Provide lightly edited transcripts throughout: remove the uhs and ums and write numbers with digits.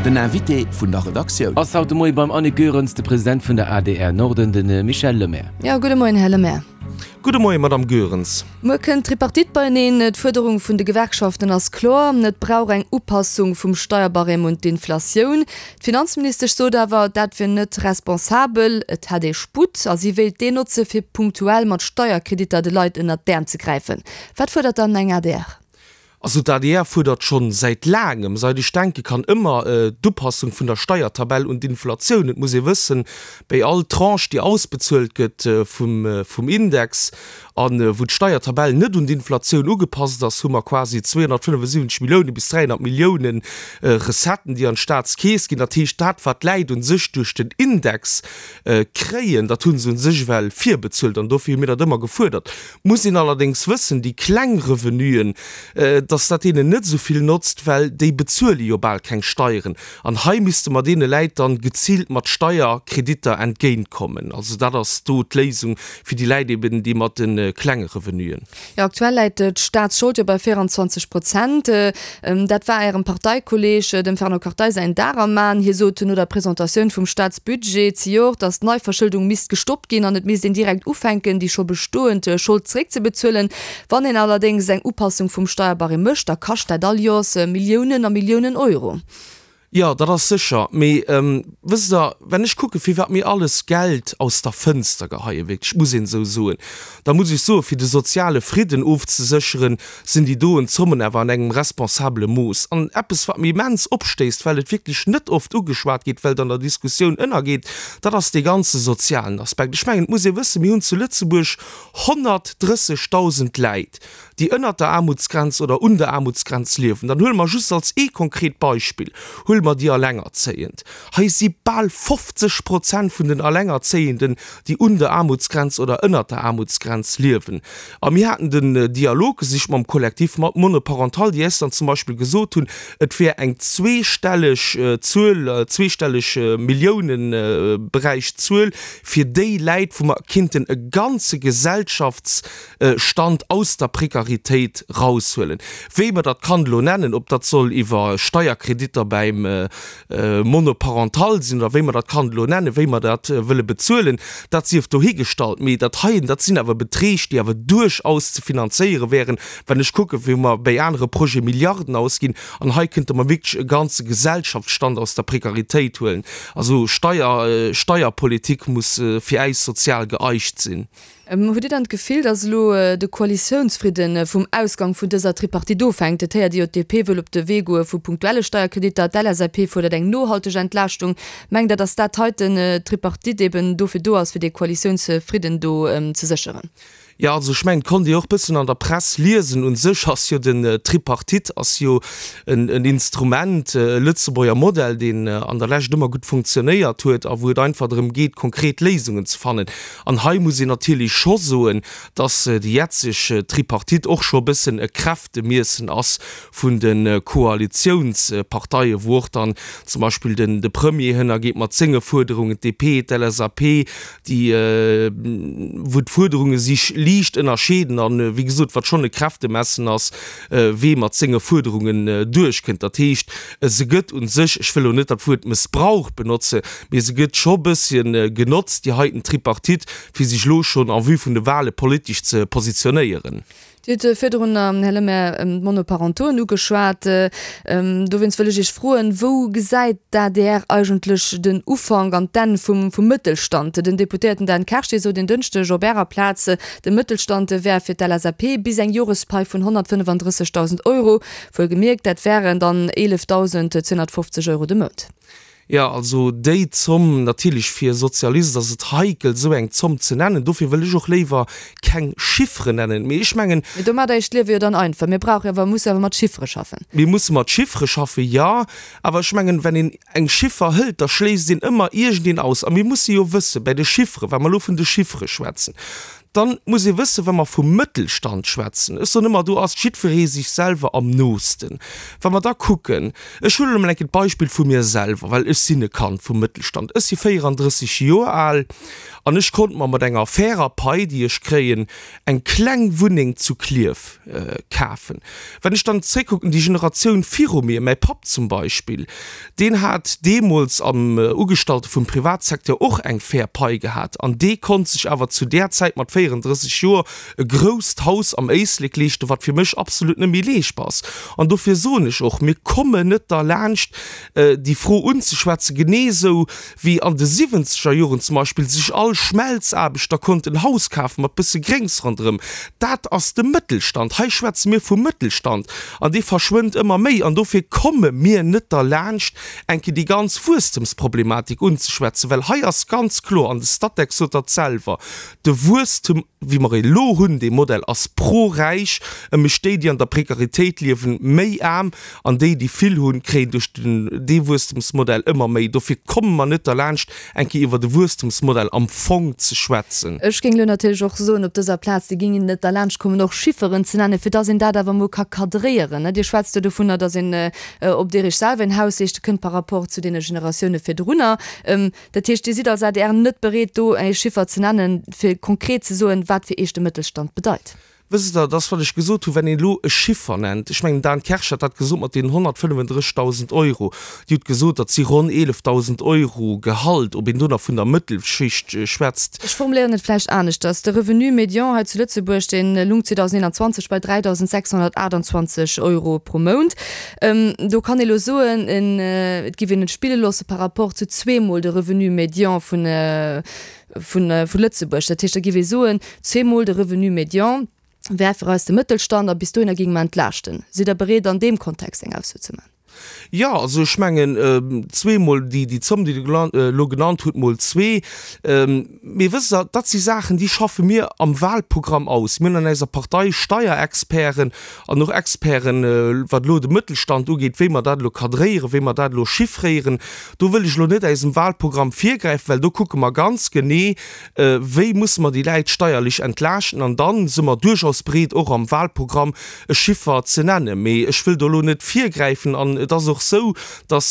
Den Invité vun der Redaktioun. Ass haut de Moie beim Annick Goerens de President vun der adr Norden, de Michel Lemaire. Jo, gudde Moien, Här Lemaire. Gudde Moien, Madamm Goerens. Muer kënnt d'Tripartite beieneen. D'Fuerderung vun de Gewerkschaften ass kloer, Et brauch eng Upassung vum Steierbarème un d'Inflatioun. D'Finanzministesch sot awer, dat wier net responsabel, et hätt ee Sputt a si wéilt deen notze fir punktuell mat Steierkreditter de Leit ënnert d'Äerm ze gräifen. Wat fuerdert dann eng adr? Also d'ADR fuerdert schonn säit laangem, seit ech denke kann, ëmmer d'Upassung vun der Steiertabell un d'Inflatioun. Et muss ee wëssen, béi all Tranche, déi ausbezuelt gëtt vum Index a wou d'Steiertabell net un d'Inflatioun ugepasst ass, hu mer quasi 275 Millioune bis 300 Millioune Recetten, déi an d'Staatskeess ginn. Dat heescht, dat wat d'Läit u sech duerch den Index kréien, dat hu se u sech ewell virbezuelt an dofir hu mir dat ëmmer gefuerdert. Muss een allerdéngs wëssen, déi kleng Revenuen, dass dat deenen net esou vill notzt, well déi bezuele jo bal keng Steieren. An hei misste mer deene Läit dann geziilt mat Steierkreditter entgéintkommen. Also dat ass do d'Léisung fir déi Läit eben, déi mat de klenge Revenuen. Jo, aktuell läit d'Staatsschold jo bei 24 Prozent. Dat war Ärem Parteikolleeg, dem Fernand Kartheiser, säin Dar am Aen. Hie sot no der Presentatioun vum Staatsbudget zejoert, datt d'Neiverschëldung misst gestoppt ginn an et misst een direkt ufänken, déi scho bestoend Schold zeréckzebezuelen. Wann een allerdéngs eng Upassung vum Steierbarème mécht, da kascht dat all Joers Milliounen a Milliounen Euro. Jo, dat ass sécher. Mee wësst Der, wenn ech kucke firwat mir alles Geld aus der Fënster geheien, wierklech, muss een esou soen, da muss ech soen, fir de soziale Fridden ofzesécheren, sinn déi doen Zommen awer an engem responsabele Mooss. An eppes, wat mir immens opstéisst, well et wierklech net oft ugeschwat gétt, well et an der Diskussioun ënnergeet, dat ass dee ganze sozialen Aspekt. Ech mengen, et muss ee wëssen, mir hunn zu Lëtzebuerg 130.000 Läit, déi ënnert der Aarmutsgrenz oder un der Aarmutsgrenz liewen, dann huele mer just als ee konkret Beispill, huele mer déi Allengerzéiend. Hei si bal 50 Prozent vun den Allengerzéienden, déi un der Aarmutsgrenz oder ënnert der Aarmutsgrenz liewen. A mir haten den Dialog gesicht mam Collectif monoparental, déi äis dann zum Beispill gesot hunn, et wär eng zweestelleg Zuel, zweestelleg Milliounenberäich Zuel fir déi Läit, wou mer kinnten e ganze Gesellschafts Stand aus der Prekaritéit raushuelen. Wéi mer dat kann elo nennen, ob dat soll iwwer Steierkreditter bäim Monoparental sinn oder wéi mer dat kann elo nennen, wéi mer dat wëlle bezuelen, dat sief dohigestallt. Mee dat heien, dat sinn awer Beträg, déi awer duerchaus ze finanzéiere wären, wann ech kucken, wéi mer bäi anere Projete Milliarden ausginn. An hei kënnte mer wierklech e ganze Gesellschaftsstand aus der Prekaritéit huelen. Also Steier, Steierpolitik muss fir äis sozial geeicht sinn. Hutt Dir dann d'Gefill, datt elo de Koalitiounsfridde vum Ausgang vun dëser Tripartite ofhänkt? Et héiert ee jo, d'DP wëll op de Wee goe vu punktuelle Steierkreditter, d'LSAP fuerdert eng nohalteg Entlaaschtung. Mengt Der, datt dat heiten, d'Tripartite, eben dofir do ass, fir dee Koalitiounsfridden do ze sécheren? Jo, also ech mengen, et konnt ee och bëssen an der Press liesen, u sech ass jo den Tripartite ass jo en Instrument, e Lëtzebuerger Modell, deen an der Lescht ëmmer gutt funktionéiert huet a wou et einfach drëm geet, konkret Léisungen ze fannen. An hei muss een natierlech scho soen, dass déi jetzeg Tripartite och scho e bëssen e Kräftemiessen ass vun de Koalitiounsparteien, wou och dann zum Beispill den de Premier hënnergeet mat senge Fuerderungen, d'DP, d'LSAP, déi, wou d'Fuerderunge sich liicht ënnerscheeden an, wéi gesot, wat schonn e Kräftemessen ass, wee mat senge Fuerderungen duerchkënnt. Dat heescht, se gëtt u sech, ech wëll elo net dat Wuert Mëssbrauch benotze, mee se gëtt scho bësschen genotzt, déi heiten Tripartite, fir sech elo schonn en vue vun de Wahle politesch ze positionéieren. Dir hutt virdrun, Här Lemaire, d'Monoparentoen ugeschwat. Dowéinst wëll ech Iech froen, Wou gesäit d'ADR eigentlech den Ufank an d'Enn vum Mëttelstand? Den Deputéierten Dan Kersch, dee sot en Dënschdeg op Ärer Plaz, de Mëttelstand wär fir d'LSAP bis eng Jorespai vun 135.000 Euro. Wuelgemierkt, dat wären dann 11.250 Euro de Mount. Jo, also déi Zomm, natierlech fir e Sozialist ass et heikel esou eng Zomm ze nennen, dofir wëll ech och léiwer keng Chifferen nennen, mee ech mengen. Mee domat eischt Liewe jo dann einfach. Mir brauche jo awer, musse awer mat Chiffere schaffen. Mir musse mat Chiffere schaffen, jo, awer ech mengen, wenn een eng Chiffer hëlt, da schléisst een ëmmer iergendeen aus. A mir musse jo wëssen, bäi de Chifferen, wa mer elo vun de Chiffere schwätzen, Dann muss ee wëssen, wa mer vum Mëttelstand schwätzen, ech soen ëmmer, do ass jiddweree sech selwer am noosten. Wa mer da kucken, ech huelen emol eng Kéier d'Beispill vu mir selwer, well ech sinn e Kand vum Mëttelstand, ech si 34 Joer al an ech konnt mer mat enger fairer Pai, déi ech kréien, eng kleng Wunneng zu Klierf kafen. Wann ech dann zréckkucken, déi Generatioun viru mir, mäi Papp zum Beispill, deen hat deemools am Ugestallte vum Privatsecteur och eng fair Pai gehat an dee konnt sech awer zu där Zäit mat 34 Joer e grousst Haus am Éislek leeschten, wat fir mech absolut net méi leeschtbar ass. An dofir soen ech och, mir kommen net derlaanscht, déi Fro unzeschwätzen, genee esou wéi an de siwwenzeger Joren zum Beispill sech all Schmelzaarbechter konnt en Haus kafen mat bësse Gréngs ronderëm. Dat ass de Mëttelstand. Hei schwätze mir vum Mëttelstand an dee verschwënnt ëmmer méi. An dofir komme mir net derlaanscht, eng Kéier déi ganz Wuesstemsproblematik unzeschwätzen, well hei ass ganz kloer, an de Statec sot dat selwer, de Wuesstem, wéi mer e lo hunn, dee Modell ass pro-räich, e mécht déi, déi an der Prekaritéit liewen, méi aarm. An déi, déi vill hunn, kréien duerch den, dee Wuesstemsmodell ëmmer méi. Dofir komme mer net derlaanscht, eng Kéier iwwer e Wuesstemsmodell am Fong ze schwätzen. Ech géing elo natierlech och soen op dëser Plaz, Dir géingt net derlaanscht kommen, och Chifferen ze nennen, fir dass een dat awer emol ka cadréieren. Dir schwätzt jo dovunner, dass een op Dir Iech selwer een Haus leeschte kënnt par rapport zu deene Generatioune virdrunner. Dat heescht, Dir sidd als adr net bereet, do e Chiffer ze nennen, fir konkret ze soen, wat fir Iech de Mëttelstand bedeit? Wësst Der, dass, wat ech gesot hunn, wenn een elo e Chiffer nennt, ech mengen, den Dan Kersch hat dat gesot mat deenen 135.000 Euro, Dir hutt gesot, dat si ronn 11.000 Euro Gehalt, ob een do nach vun der Mëttelschicht schwätzt. Ech formuléieren et vläicht aneschters, De Revenu médian hei zu Lëtzebuerg, dee lung 2021 bei 3.628 Euro pro Mount. Do kann ee elo soen, et giff een et spille loosse par rapport zu zweemol de Revenu médian vun, Vu Lëtzebuerg. Dat heescht, da géif ee soen, zweemol de Revenu médian wär fir eis de Mëttelstand a bis dohinner géinge mer entlaaschten. Sidd Der bereet, an deem Kontext eng Ausso ze maachen? Jo, also ech mengen, zweemol déi Zomm, déi Der elo genannt hutt, mol zwee. Mee wësst Der, dat si Saachen, déi schaffe mir am Wahlprogramm aus. Mir hunn an eiser Partei Steierexperten an och Experten, wat elo de Mëttelstand ugeet, wéi mer dat elo cadréieren, wéi mer dat elo chiffréieren. Do wëll ech elo net eisem Wahlprogramm virgräifen, well do kucke mer ganz genee, wéi musse mer déi Läit steierlech entlaaschten. An da si mer duerchaus bereet, och am Wahlprogramm e Chiffer ze nennen. Mee ech wëll do elo net virgräifen. An et ass och esou, datt,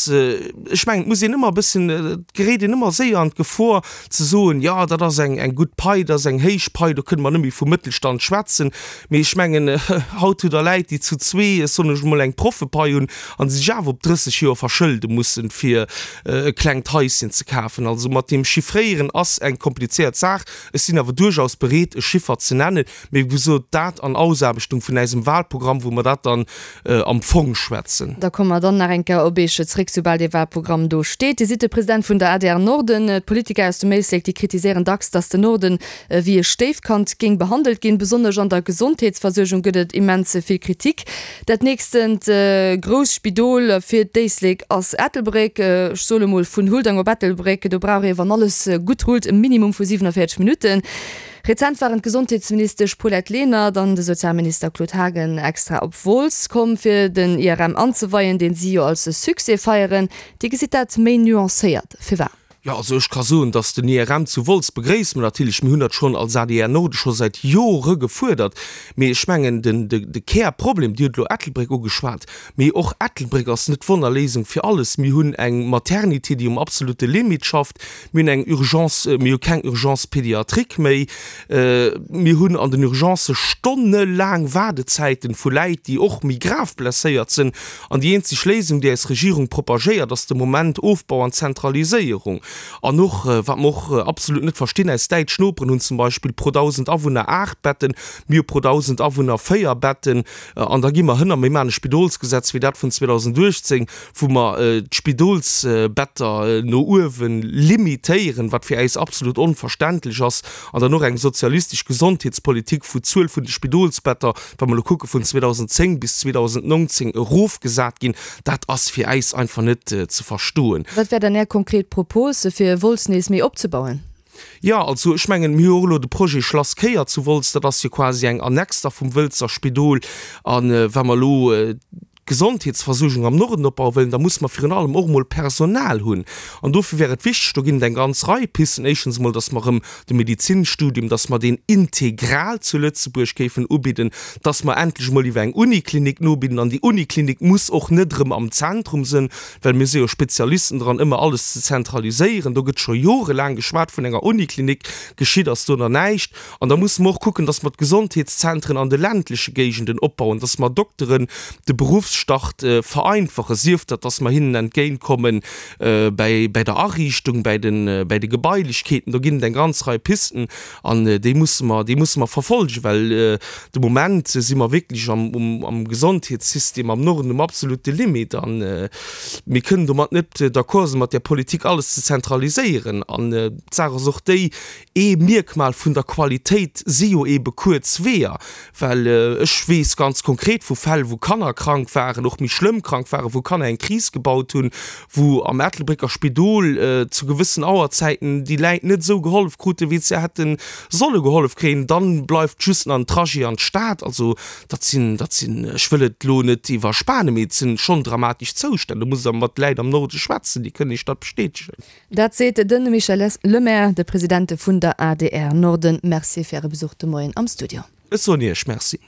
ech mengen, et muss een ëmmer e bëssen, et geréit een ëmmer séier an d'Gefor ze soen, jo, dat ass eng gutt Pai, dat ass eng héich Pai, do kënne mer net méi vum Mëttelstand schwätzen. Mee ech mengen, haut hutt Der Läit, déi zu zwee, ech soen ech emol, eng Proffepai hunn a sech awer op 30 Joer verschëlde mussen, fir e klengt Haischen ze kafen. Also mat deem Chiffréieren ass eng komplizéiert Saach. Ech sinn awer duerchaus bereet, e Chiffer ze nennen. Mee wéi gesot, dat an Ausaarbechtung vun äisem Wahlprogramm, wou mer dat dann am Fong schwätzen. Da komme mer dann nach eng Kéier op Eech zréck, soubal dee Wahlprogramm do steet. Dir sidd de President vun der adr Norden. D'Politiker aus dem Éislek, déi kritiséieren dacks, datt den Norden wéi e Stéifkand géing behandelt ginn. Besonnesch an der Gesondheetsversuergung gëtt et immens vill Kritik. Dat nächstent grousst Spidol fir d'Éislek ass Ettelbréck. Ech soe mol vun Huldang op Ettelbréck, do brauch ee, wann alles gutt rullt, e Minimum vu 47 Minutten. Rezent waren d'Gesondheetsministesch Paulette Lenert an de Sozialminister Claude Haagen extra op Wolz komm, fir den IRM anzeweien, deen si jo als Succès feieren. Dir gesitt dat méi nuancéiert. Firwat? Jo, also ech ka soen, datt den IRM zu Wolz begréisse mer natierlech. Mir hunn dat schonn als adr Norde scho säit Jore gefuerdert. Mee ech mengen, den, de Kärproblem, Dir hutt elo Ettelbréck ugeschwat, mee och Ettelbréck ass net d'Wonnerléisung fir alles. Mir hunn eng Maternité, déi um absolute Limit schafft. Mir hunn eng Urgence, mir hu keng Urgence pédiatrique méi. Mir hunn an den Urgencë stonnelaang Waardezäiten vu Läit, déi och méi grav blesséiert sinn. An déi eenzeg Léisung, déi eis Regierung propagéiert, ass de Moment Ofbau an Zentraliséierung. An och, wat mer och absolut net verstinn, eis däitsch Noperen hunn zum Beispill pro 1.000 Awunner 8 Betten, mir hu pro 1.000 Awunner 4 Betten. An da gi mer hënner, mir maachen e Spidolsgesetz wéi dat vun 2018, wou mer d'Spidolsbetter no uewe limitéieren, wat fir äis absolut onverständlech ass. An dann och eng sozialistesch Gesondheetspolitik, wou d'Zuel vun de Spidolsbetter wa mer elo kucke vun 2010 bis 2019, erofgesat ginn, dat ass fir äis einfach net ze verstoen. Wat wär dann Är konkret Propos, fir Wolz nees méi opzebauen? Jo, also ech mengen, mir hu och elo de Projet Schlass Kéier zu Wolz, dat ass jo quasi eng Annex da vum Wëlzer Spidol. A wa mer elo. Gesondheetsversuergung am Norden opbaue wëllen, da musse mer virun allem och emol Personal hunn. An dofir wär et wichteg, do ginn et eng ganz Rei Pisten, éischtens emol, dass mer erëm de Medezinstudium, dass mer deen integral zu Lëtzebuerg géifen ubidden, dass mer endlech emol iwwer eng Uniklinik nobidden. An déi Uniklinik muss och net erëm am Zentrum sënn, well mir si jo Spezialisten dran, ëmmer alles ze zentraliséieren. Do gëtt scho jorelaang geschwat vun enger Uniklinik, geschitt ass do nach näischt. An da musse mer och kucken, dass mer d'Gesondheetszentren an de ländleche Géigenden opbauen, dass mer Dokteren de Beruffsstart vereinfachen, sief dat, dass mer hinnen entgéintkomme bäi der Ariichtung, bäi de Gebailechkeeten. Do ginn et eng ganz Rei Pisten an déi musse mer, déi musse mer verfolgen, well de Moment si mer wierklech am Gesondheetssystem am Norden um absolute Limit a mir kënnen domat net d'accord sinn, mat där Politik alles ze zentraliséieren. An d'Saach ass och déi, Ee Mierkmal vun der Qualitéit si jo eebe kuerz Weeër, well ech weess ganz konkret vu Fäll, wou Kanner krank waren, och méi schlëmm krank waren, wou Kanner eng Kris gebaut hunn, wou am Ettelbrécker Spidol zu gewëssen Auerzäiten déi Läit net esou gehollef kruten, wéi se hätte solle gehollef kréien. Dann bleift just nach en Trajet an d'Stad. Also dat sinn, dat sinn, ech wëll et elo net iwwerspanen, mee et sinn schonn dramatesch Zoustänn. Do musst Der mat Läit am Norde schwätzen, déi kënnen Iech dat bestätegen. Dat seet de Michel Lemaire, de President vun der adr Norden. Merci fir Äre Besuch de Moien am Studio. Ech soen Iech Merci.